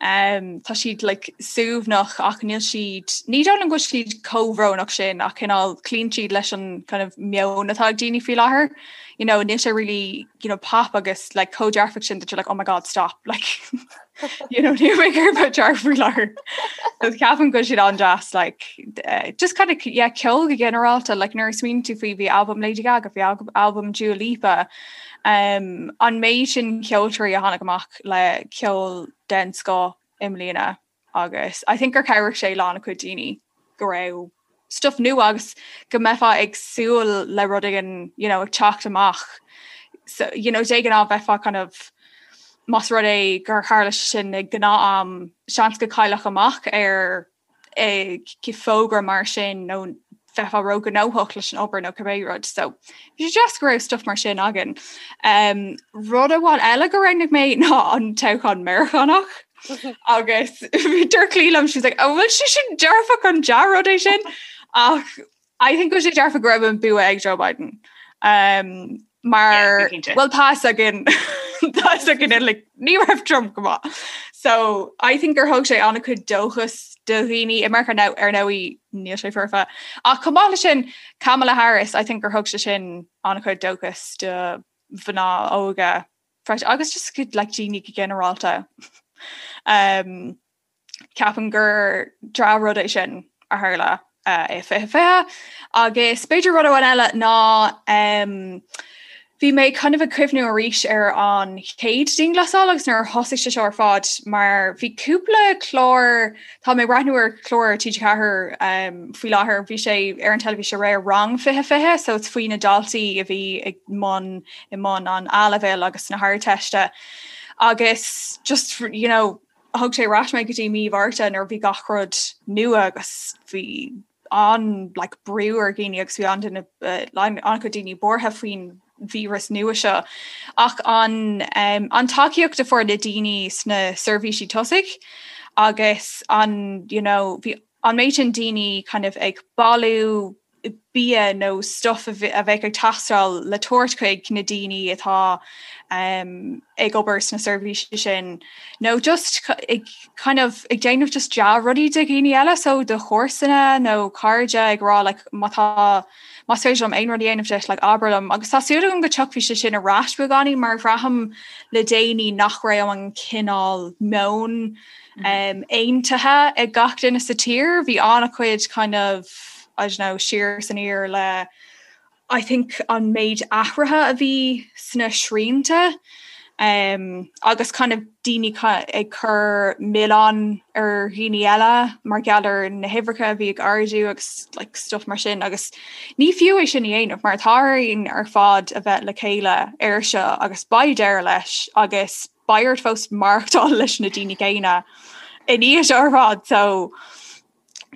Um, tá siad like, suaimhneach ach níl siad ní dóigh liom go bhfuil siad chomh brónach sin ach cineál cloíonn siad leis an kind of meon atá ag daoine faoi láthair. You know, níl sé really you know, pop agus like, chomh dearfach sin that you're like, oh my god, stop like, you know, níl mé ag iarraidh bheith dearfach faoi láthair. So ceapaim go bhfuil siad an-deas like, uh, just kind of yeah, ceol go ginearálta like, nuair a smaoiníonn tú faoi bhí albam Lady Gaga, bhí albam Dua Lipa, um, an méid sin ceoltóirí a tháinig amach le ceol den scoth i mbliana agus I think gur chabhraigh sé le an-chuid daoine go raibh stuff nua agus go mbeifeá ag súil le rud éigin you know, ag teacht amach. So, you know, de ghnáth bheifeá kind of más rud é gur tharla sé sin ag gnáth-am seans go gcaillfeá amach ar eh, fógra mar sin nó bheifeá róghnóthach leis an obair nó cibé rud. So bhí sé deas go raibh stuff mar sin againn. Um, rud amháin eile go roghnaigh mé ná an toghchán Meiriceánach. agus dúirt Clí liom she's like, oh, bhfuil sé sin dearfach an dea-rud é sin ach I think go sé dearfach go raibh an bua ag Joe Biden. Um, mar well tá againn tá againn like, ní raibh Trump go maith. So I think gur thug sé an-chuid dóchas do dhaoine i Meiriceá now ar ndóigh níl sé foirfe. Ach chomh maith leis sin Kamala Harris, I think gur thug sé sin an-chuid dóchas do mhná óga freisin agus just go like daoine go ginearálta. Um, Ceapaim gur dea-rud é sin a tharla i 2020 agus b'fhéidir rud amháin eile ná bhí mé kind of ag cuimhniú arís ar an chéad dianghlasáil agus nuair a thosaigh sé seo ar fad mar bhí cúpla clár, tá mé ag breathnú ar chlár TG4 faoi láthair, bhí sé ar an teilifís aréir Rang 2020 so it's faoi na daltaí a bhí ag mbun i mbun an A-leibhéil agus na hArdteiste agus just you know thug sé ar ais mé go dtí mí Mhárta nuair a bhí gach rud nua agus bhí an like, brú ar dhaoine agus bhí an-duine an-chuid daoine buartha faoin víreas nua seo. Ach an, um, an tacaíocht a fuair na daoine sna seirbhísí tosaigh agus an, you know, bhí an méid sin daoine kind of ag bailiú bia nó stuff a bheadh ag teastáil le tabhairt chuig na daoine atá ag obair sna seirbhísí sin nó just ag kind of ag déanamh just dea-rudaí do dhaoine eile so do chomharsana nó cairde ag rá like má tá más féidir liom aon rud a dhéanamh duit like abair liom agus tá súil agam go dtiocfaidh sé sin ar ais beagáinín mar bhraithim le déanaí nach raibh an cineál meon aontaithe ag gach duine sa tír. Bhí an-chuid kind of, I don't know, siar is aniar le I think an méid athruithe a bhí sna srianta um, agus kind of daoine ag cur milleán ar dhaoine eile mar gheall ar na huimhreacha a bhí ag ardú agus like, stuff mar sin agus ní fiú é sin a dhéanamh mar tá orainn ar fad a bheith le chéile air seo agus beidh deireadh leis agus beidh ort fós maireachtáil leis na daoine céanna i ndiaidh seo ar fad so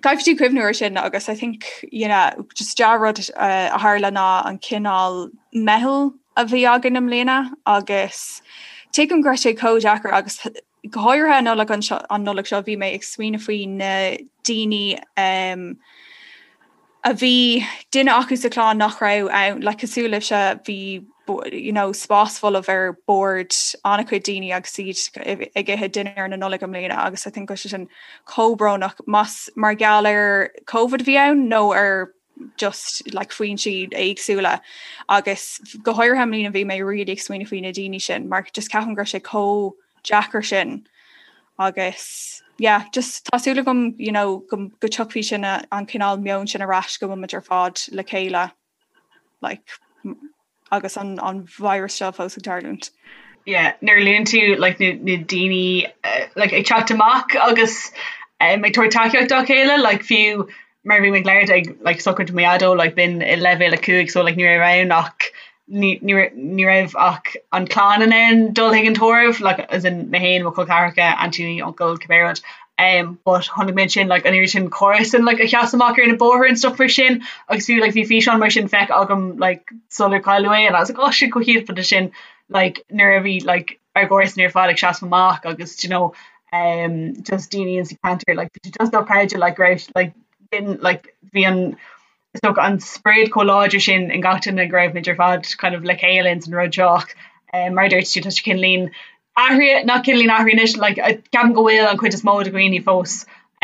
caithfidh tú cuimhniú ar sin agus I think you know, just dea-rud uh, a tharla ná an cineál meitheal a bhí againn i mbliana agus tuigim go raibh sé chomh deacair agus go háirithe an Nollaig an, an Nollaig seo bhí mé ag smaoineamh faoi na daoine um, a bhí duine acu sa chlann nach raibh ann, like cosúil libhse, bhí you know spás folamh ar bord an-chuid daoine agus iad ag ithe dinnéar na Nollag i mbliana agus I think go raibh sé sin chomh brónach más mar gheall ar Covid a bhí ann nó ar just like foinsí éagsúla agus go háirithe i mbliana bhí mé really ag smaoineamh faoi na daoine sin mar just ceapaim go raibh sé chomh deacair sin agus yeah just tá súil agam you know go go dtiocfaidh sin an cineál meon sin ar ais go bhfuil muid ar fad le chéile like agus an an virus seo fós ag tarlúint. Yeah, nuair a luann tú like na na daoine uh, like ag teacht amach agus um, ag tabhairt tacaíocht dá chéile like fiú mar bhí mé ag labhairt ag like sochraid mo dhaideo like b'in i leibhéal 5 so like ní raibh ann ach ní ní ní raibh ach an clann in ann dul chuig an tórramh like as in mé féin mo chol ceathracha aintíní uncail cibé rud um but chonaic mé ansin like an oiread sin comharsan like a sheas amach ar na bóithre and stuff mar sin agus fiú like bhí físeán mar sin feicthe agam like sular cailleadh é and I was like oh shit chomh hiontach sin like nuair a bhí like ár gcomharsain ar fad ag seasamh amach agus do you know um just daoine in sa ceantar like bhí sé just dochreidte like go raibh like din like bhí an is dócha an sprid chomh láidir sin in gach duine go raibh muid ar fad kind of le chéile ins an rud seo ach um mar a dúirt tú tá sé cineáilín athraithe nach cineáilín athraithe anois like ceapaim go bhfuil an chuid is mó de dhaoine fós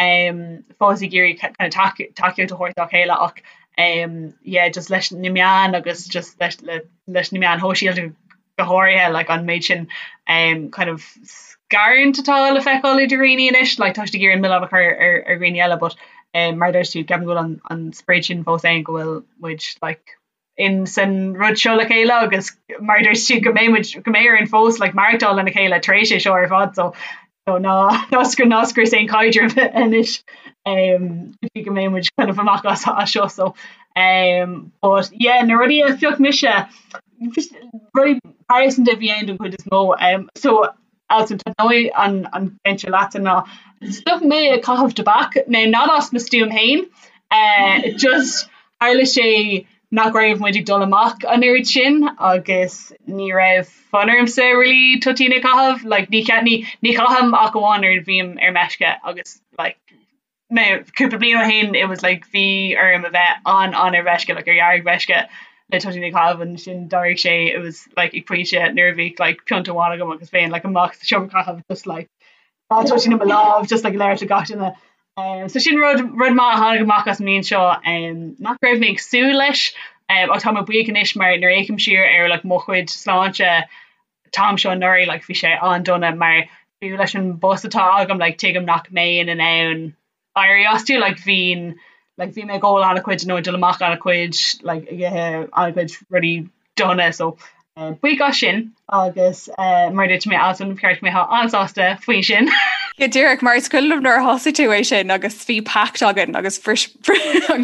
um fós ag iarraidh kind of tacaíocht a thabhairt dá chéile ach um yeah just leis na meáin agus just leis le leis na meáin shóisialta go háirithe like an méid sin um kind of scarúint atá le feiceáil idir dhaoine anois like tá siad ag iarraidh an milleán a chur ar ar dhaoine eile but um mar a dúirt tú ceapaim go bhfuil an an sprid sin fós ann go bhfuil muid like in san rud seo le chéile agus mar a dúirt tú go mbeidh muid go mbeidh orainn fós like maireachtáil lena chéile tar éis é seo ar fad so so ná ná scr ná scrios aon chaidreamh anois um go dtí go mbeidh muid kind of amach as as seo so um but yeah na rudaí a phioc mise rudaí pearsanta a bhí ann don chuid is mó um so Alison tá dóigh an an ceann seo leatsa ná stop mé ag caitheamh tobac now not as mo stuaim féin uh just. Tharla sé nach raibh muid ag dul amach an oiread sin agus ní raibh fonn ormsa really toitín a chaitheamh, like ní ní ní chaithim ach amháin nuair a bhím ar meisce agus like mé cúpla bliain ó shin it was like bhí orm a bheith an an ar mheisce like ar dheargmheisce le toitín a chaitheamh ansin d'éirigh sé it was like ag pointe nuair a bhí like pionta amháin agam agus bheinn like amach sa seomra caitheamh just like Tá toitín i mo lámh just like labhairt le gach duine. Um, so sin rud rud maith a tháinig amach as an mbliain seo um, nach raibh mé ag súil leis um, ach tá mé buíoch anois mar nuair a fhéachaim siar ar like, mo chuid sláinte an t-am seo anuraidh like, bhí sé an-dona mar fiú leis an bpost atá agam like, tuigim nach mbeinn in ann éirí astu like bhínn like bhí mé ag ól an-chuid nó ag dul amach an-chuid like ag ithe an-chuid rudaí dona so eh, buíoch as sin agus eh, mar dúirt mé Alison ba cheart go mbeifeá an-sásta faoi sin. Go díreach mar is cuimhin liom nuair a thosaigh tú é sin agus bhí pact againn agus bhris an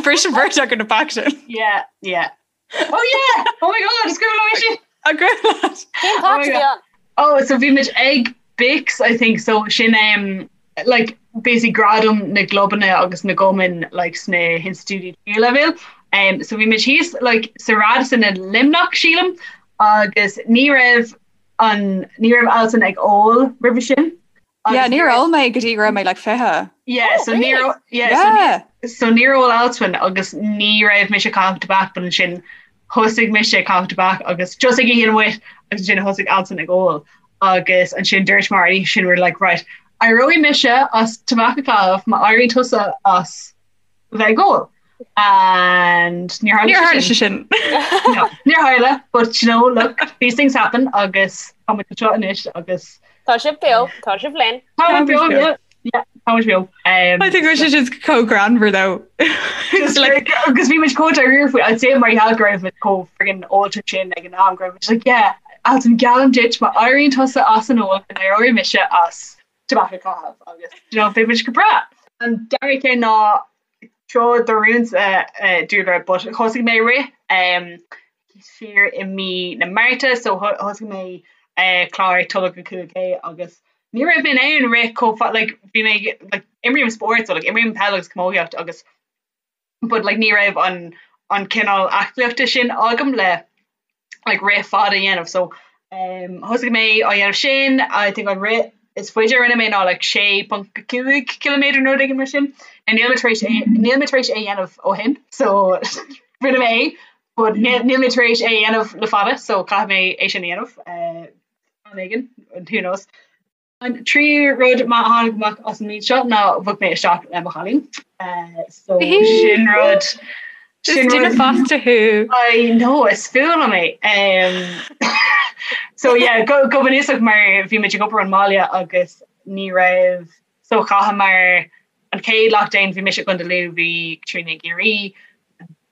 bhris an bheirt againn an pact sin. Yeah, yeah. Oh yeah! Oh my god, is cuimhin liom é sin! An cuimhin leat? Cén pact a bhí ann? Oh, so bhí muid ag BICS, I think, so sin um, like, basically gradam na gclubanna agus na gcumann like, sna hinstitiúidí tríú leibhéal. Um, so bhí muid thíos like, sa Radisson i Luimneach, sílim, agus ní raibh an ní raibh Alison ag ól roimhe sin. Yeah, níor ól mé go dtí go raibh mé like 20. Yeah, Oh, so ní really? yeah, so Yeah. so níor ól Alswyn agus ní raibh mise ag caitheamh tobac but ansin thosaigh mise ag caitheamh tobac agus just ag oíche amháin agus ansin thosaigh Alswyn ag ól agus ansin dúirt mar an oíche sin we're like right éireoidh mise as tobac a chaitheamh má éiríonn tusa as bheith ag ól and níor tharla Níor tharla sé sé sin. No, níor tharla but you know look these things happen agus tá muid anseo anois agus Tá sibh beo, tá sibh linn. Tá muid beo, yeah, yeah, tá muid beo. Um, I think it was just chomh greannmhar though. Just like agus bhí muid chomh dáiríre faoi I'd say mar gheall go raibh muid chomh friggin ólta sin ag an am go raibh muid like yeah Alswyn geallaim duit má éiríonn tusa as an ól go n-éireoidh mise as tobac a chaitheamh agus you know beidh muid go breá. An dara ceann ná seo do rúnsa Dúlra but thosaigh mé rith um, siar i mí na Márta so thosaigh mé uh, clár Tolg 5K agus ní raibh mé in ann rith chomh fada like bhí mé like imrím spórt so like imrím peil agus camógaíocht agus but like ní raibh an an cineál aclaíochta sin agam le like rith fada a dhéanamh so um, thosaigh mé á dhéanamh sin I think an rith is faide a rinne mé ná like 6.5 km nó rud éigin mar sin and níl mé tar éis é níl mé tar éis é dhéanamh ó shin so rinne mé é but níl níl mé tar éis é dhéanamh le fada so caithfidh mé é sin a dhéanamh uh, am éigin who knows. An tríú rud maith a tháinig amach as an mbliain seo ná bhog mé isteach le mo chailín. So sin rud Is duine fásta thú. I know is fuath liom é. So yeah, go go bunúsach mar bhí muid ag obair ón mbaile agus ní raibh so chaitheamar an chéad lockdown bhí mise i gContae Lú bhí Caitríona i gCiarraí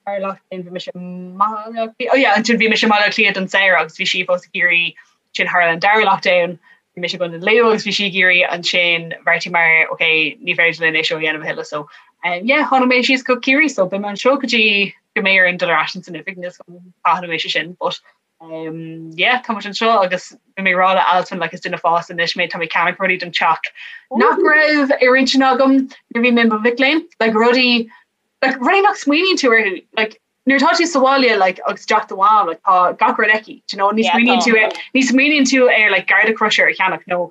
Dara lockdown bhí mise i mBaile Átha Cliath oh yeah ansin bhí mise i mBaile Átha Cliath don samhradh agus bhí sí fós i gCiarraí ansin tharla an dara lockdown bhí mise i gContae Lú agus bhí sí i gCiarraí ansin bheartaíomar ok ní féidir linn é seo a dhéanamh a thuilleadh so um, yeah tháinig mé síos go Ciarraí so beidh mé anseo go dtí go mbeidh orainn dul ar ais san oifig níl a fhios agam cathain a bheidh sé sin but um, yeah tá muid anseo agus bhí mé ag rá le Alswyn like is duine fásta anois mé tá mé ag ceannach rudaí don teach nach raibh ar intinn agam nuair a bhí mé i mo mhic léinn like rudaí like rudaí nach smaoiníonn tú orthu like nuair atá tú sa bhaile like agus i dteach do mham like tá gach rud aici do you know ní smaoiníonn tú ar ní smaoiníonn tú ar like garda crusher a cheannach nó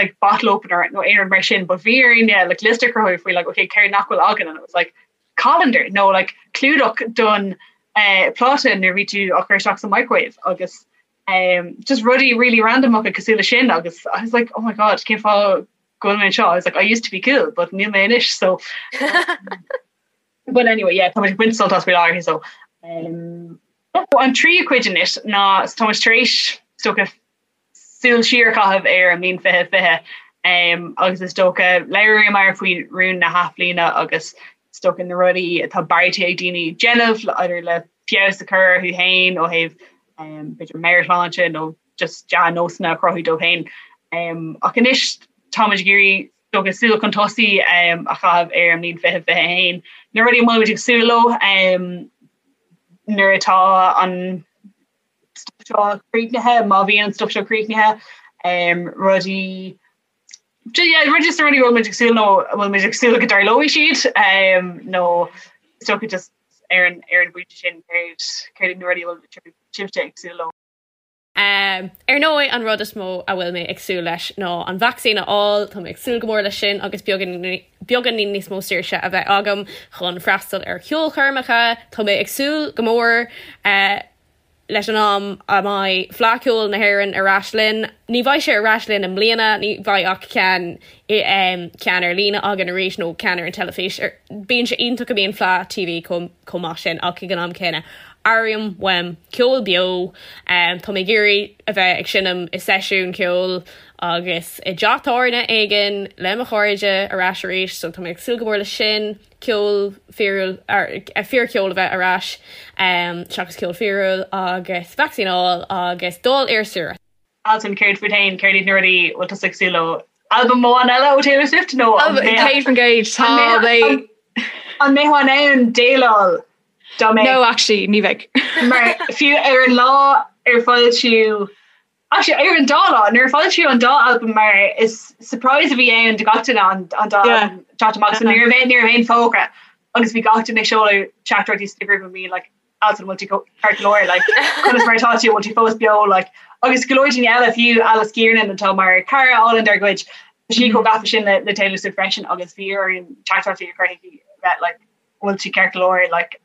like bottle opener nó aon rud mar sin but bhí orainn yeah, like liosta a chruthú faoi like okay céard nach bhfuil againn and it was like colander nó like clúdach don uh, pláta nuair bhí tú á chur isteach sa microwave agus um, just rudaí really random acu cosúil le sin agus I was like oh my god cén fáth go bhfuil mé anseo I was like I used to be cool but níl mé anois so but anyway yeah tá muid ag baint sult as faoi láthair so um, an tríú cuid anois ná so tá muid tar éis is dócha súil siar a chaitheamh ar an mbliain 2020 um, agus is dócha labhraíomar faoi rún na hathbhliana agus is dócha na rudaí atá beartaithe ag daoine déanamh idir le feabhas a chur orthu féin ó thaobh um, b'fhéidir meabhairshláinte nó just dea-nósanna a chruthú dóibh féin. Ach anois táimid ag iarraidh is dócha súil chun tosaigh a chaitheamh ar an mbliain 2021. Na rudaí a bhfuil muid ag súil leo nuair atá an stuff seo críochnaithe, má bhíonn an stuff seo críochnaithe, rudaí yeah, rudaí just na rudaí a bhfuil muid ag súil nó a bhfuil muid ag súil go dtarlóidh siad nó is dócha just. ar an ar an bpointe sin céard céard iad na rudaí a bhfuil sibhse ag súil leo? Ar ndóigh, an rud is mó a bhfuil mé ag súil leis ná an vacsaín a fháil, tá mé ag súil go mór leis sin agus beagáinín níos mó saoirse a bheith agam chun freastal ar cheolchoirmeacha. Tá mé ag súil go mór leis an am a mbeidh Fleadh Cheoil na hÉireann ar ais linn. Ní bheidh sé ar ais linn i mbliana, ní bheidh ach ceann ceann ar líne againn arís nó ceann ar an teilifís. Bíonn sé iontach go mbíonn Fleadh TV chomh maith sin ach ag an am céanna airím uaim ceol beo. Tá mé ag iarraidh a bheith ag seinm i seisiún ceoil agus i dteach tábhairne éigin le mo chairde ar ais arís so tá mé ag súil go mór leis sin, ceol fíorúil, fíorcheol a bheith ar ais seachas ceol fíorúil agus vacsaín a fháil agus dul ar saoire. Altan, céard fút féin, céard iad na rudaí a bhfuil tusa ag súil leo? Albam amháin eile ó Taylor Swift nó an 100% tá mé. An mbeifeá in ann déileáil dá mbeadh? No, actually, ní bheidh. Mar fiú ar an lá ar foilsíodh, actually ar an dá lá, nuair a foilsíodh an dá albam mar is surprise a bhí ann do gach duine an an dá albam teacht amach so ní raibh ní raibh aon fógra agus bhí gach duine ag seoladh teachtaireachtaí sna grúpaí bhí like Altan bhfuil tú ceart go leor like conas mar atá tú bhfuil tú fós beo like agus go leor daoine eile fiú Alice Kiernan atá mar cara álainn dár gcuid tá sí chomh gafa sin le le Taylor Swift freisin agus bhí orainn teachtaireachtaí a chur chuici bheith like bhfuil tú ceart go leor like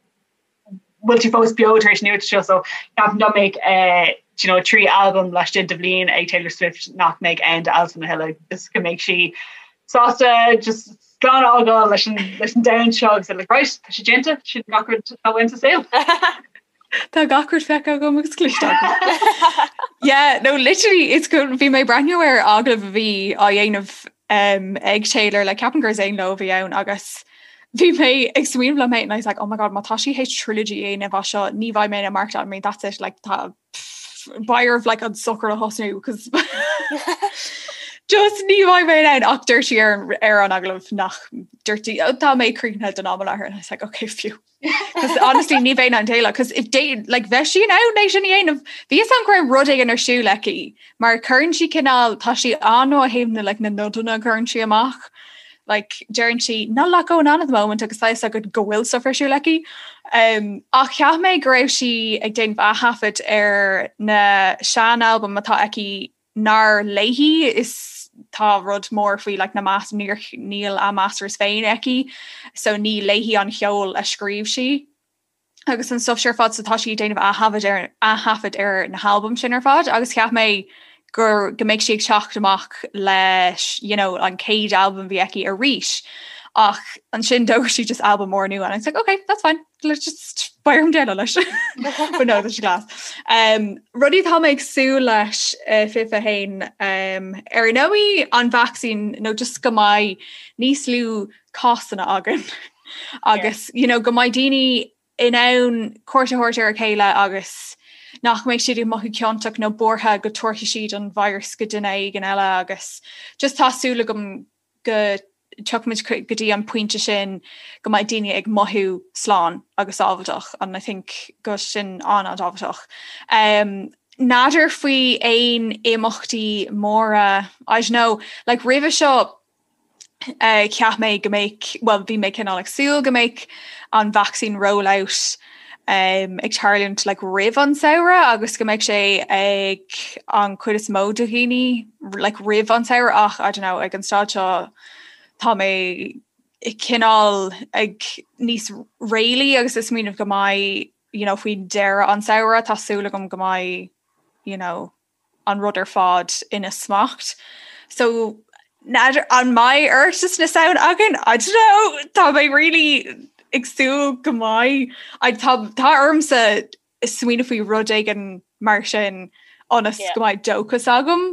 bhfuil tú fós beo tar éis an nuacht seo so ceapaim dá mbeadh eh you know 3 albam laistigh de bhliain ag Taylor Swift nach mbeidh ann d'Altan a thuilleadh just go mbeidh sí sásta just slán a fhágáil leis an leis an domhan seo agus like right tá sé déanta sin gach rud atá uaim sa saol. Tá gach rud feicthe agam agus cloiste agam. Yeah, no literally it's go bhí mé ag breathnú ar agallamh a bhí á dhéanamh um, ag Taylor le ceapaim gur Zane Lowe a bhí ann agus bhí mé ag smaoineamh liom féin and I was like oh my god má tá sí théis trilogy a dhéanamh as seo ní bheidh mé in ann maireachtáil I mean that's it like tá beidh orm like an sochar a thosnú cos just ní bheidh mé in ann ach dúirt sí ar an ar an agallamh nach dúirt sí "Oh, tá mé críochnaithe don am i láthair and I was like okay phew Cos honestly ní bheinn in ann déileáil cos if they like bheadh sí in ann é sin a dhéanamh bhí fhios agam go raibh rud éigin ar siúl aici mar cuireann sí cineál tá sí an-ó thaobh na like na nodanna a chuireann sí amach like deireann sí not a lot going on at the moment agus tá fhios agat go bhfuil stuff ar siúl aici. Um, ach cheap mé go raibh sí ag déanamh aththaifead ar na sean-albaim atá aici nár léi is tá rud mór faoi like, na mas níor níl a masters féin aici so ní léi an cheol a scríobh sí. agus an stuff sin ar fad so tá sí ag déanamh aththaifead ar aththaifead ar na halbaim sin ar fad agus cheap mé gur go mbeidh sí ag teacht amach leis you know an chéad albam a bhí aici arís ach ansin d'fhógair sí just albam mór nua and I was like okay that's fine let's just beidh orm déileáil leis but no tá sé class. Um, rudaí atá mé ag súil leis uh, 21 um, ar ndóigh an vacsaín nó just go mbeidh níos lú cásanna againn agus you know, go mbeidh daoine in ann cuairt a thabhairt ar a chéile agus nach mbeidh siad ag mothú ciontach nó buartha go dtabharfaidh siad an virus go duine éigin eile agus just tá súil agam go dtiocfaimid go dtí an pointe sin go mbeidh daoine ag mothú slán agus sábháilteach and I think go sin an-an-tábhachtach. Um, N'fheadar faoi aon imeachtaí móra, I don't know, like roimhe seo Cheap mé go mbeadh, bhuel bhí mé cineál ag súil go mbeadh an vaccine rollout ag tarlúint like roimh an samhradh agus go mbeadh sé ag an chuid is mó de dhaoine like roimh an samhradh ach I don't know ag an staid seo tá mé cineál ag níos réalaí agus ag smaoineamh go mbeidh you know faoi deireadh an samhradh tá súil agam go mbeidh you know an rud ar fad ina smacht. So n'fheadar an mbeidh Oireachtas na Samhna againn? I don't know, tá mé really ag súil go mbeidh. I tá tá ormsa smaoineamh faoi rud éigin mar sin ionas go mbeidh dóchas agam.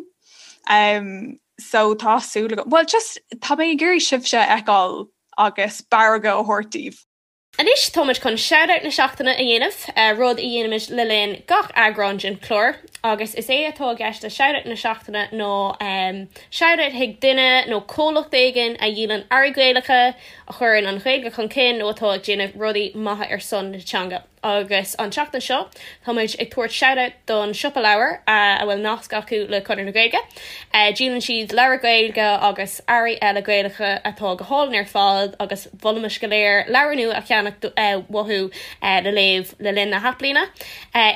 Um, so tá súil agam. Well just tá mé ag iarraidh sibhse a fheiceáil agus barraga a thabhairt daoibh. Anois táimid chun Shoutout na Seachtaine a dhéanamh, rud a dhéanaimid le linn gach eagrán den chlár, agus is é atá i gceist le Shoutout na Seachtaine ná shoutout chuig duine nó comhlacht éigin a dhíolann earraí Gaelacha, a chuireann an Ghaeilge chun cinn nó atá ag déanamh rudaí maithe ar son na teanga. Agus an tseachtain seo tá muid ag tabhairt shout-out don Siopa Leabhar a bhfuil nasc acu le Conradh na Gaeilge. Díolann siad leabhair Gaeilge agus earraí eile Gaelacha atá go hálainn ar fad agus mholfaimis go léir leabhar nua a cheannach uathu le léamh le linn na hathbhliana.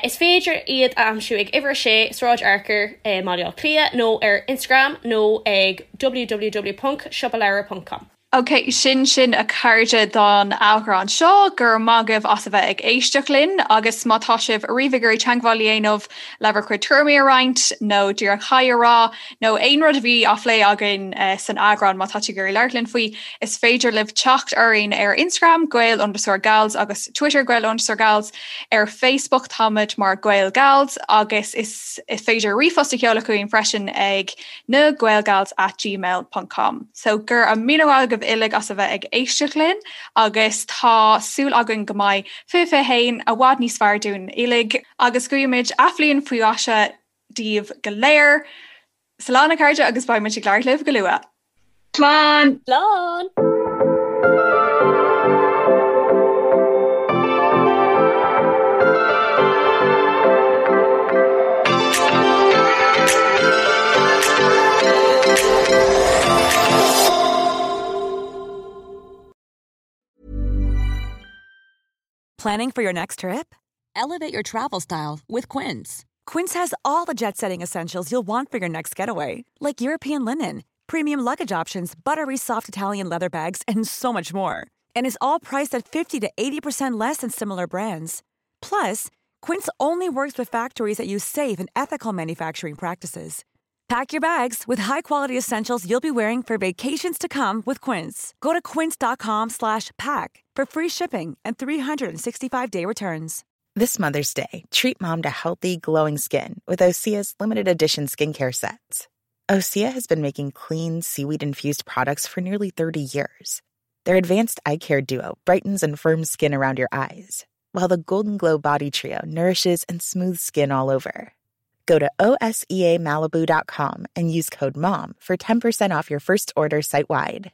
Is féidir iad a aimsiú ag Uimhir 6, Sráid Fhearchair i mBaile Átha Cliath nó ar Instagram nó ag www.siopaleabhar.com. Ok, sin sin a chairde don eagrán seo, go raibh maith agaibh as a bheith ag éisteacht linn agus má tá sibh ariamh ag iarraidh teagmháil a dhéanamh le bhur gcuid tuairimí a roinnt nó díreach haigh a rá nó aon rud a bhí á phlé againn san eagrán má tá tú ag iarraidh labhairt linn faoi, is féidir libh teacht orainn ar Instagram Gael underscore Gals agus Twitter Gael underscore Gals, ar Facebook táimid mar Gael Gals agus is féidir ríomhphost a sheoladh chugainn freisin ag na gaelgals at gmail ponc com. So go raibh míle maith agaibh uilig as a bheith ag éisteacht linn agus tá súil againn go mbeidh 2021 i bhfad níos fearr dúinn uilig agus guímid athbhliain faoi mhaise daoibh go léir. Slán a chairde agus beidh muid ag labhairt libh go luath. Slán! Slán! Planning for your next trip? Elevate your travel style with Quince. Quince has all the jet setting essentials you'll want for your next getaway, like European linen, premium luggage options, buttery soft Italian leather bags, and so much more. And is all priced at 50 to 80% less than similar brands. Plus, Quince only works with factories that use safe and ethical manufacturing practices. Pack your bags with high-quality essentials you'll be wearing for vacations to come with Quince. Go to quince.com slash pack for free shipping and 365-day returns. This Mother's Day, treat mom to healthy, glowing skin with Osea's limited edition skincare sets. Osea has been making clean, seaweed infused products for nearly 30 years. Their advanced eye care duo brightens and firms skin around your eyes, while the Golden Glow Body Trio nourishes and smooths skin all over. Go to OSEAMalibu.com and use code MOM for 10% off your first order site wide.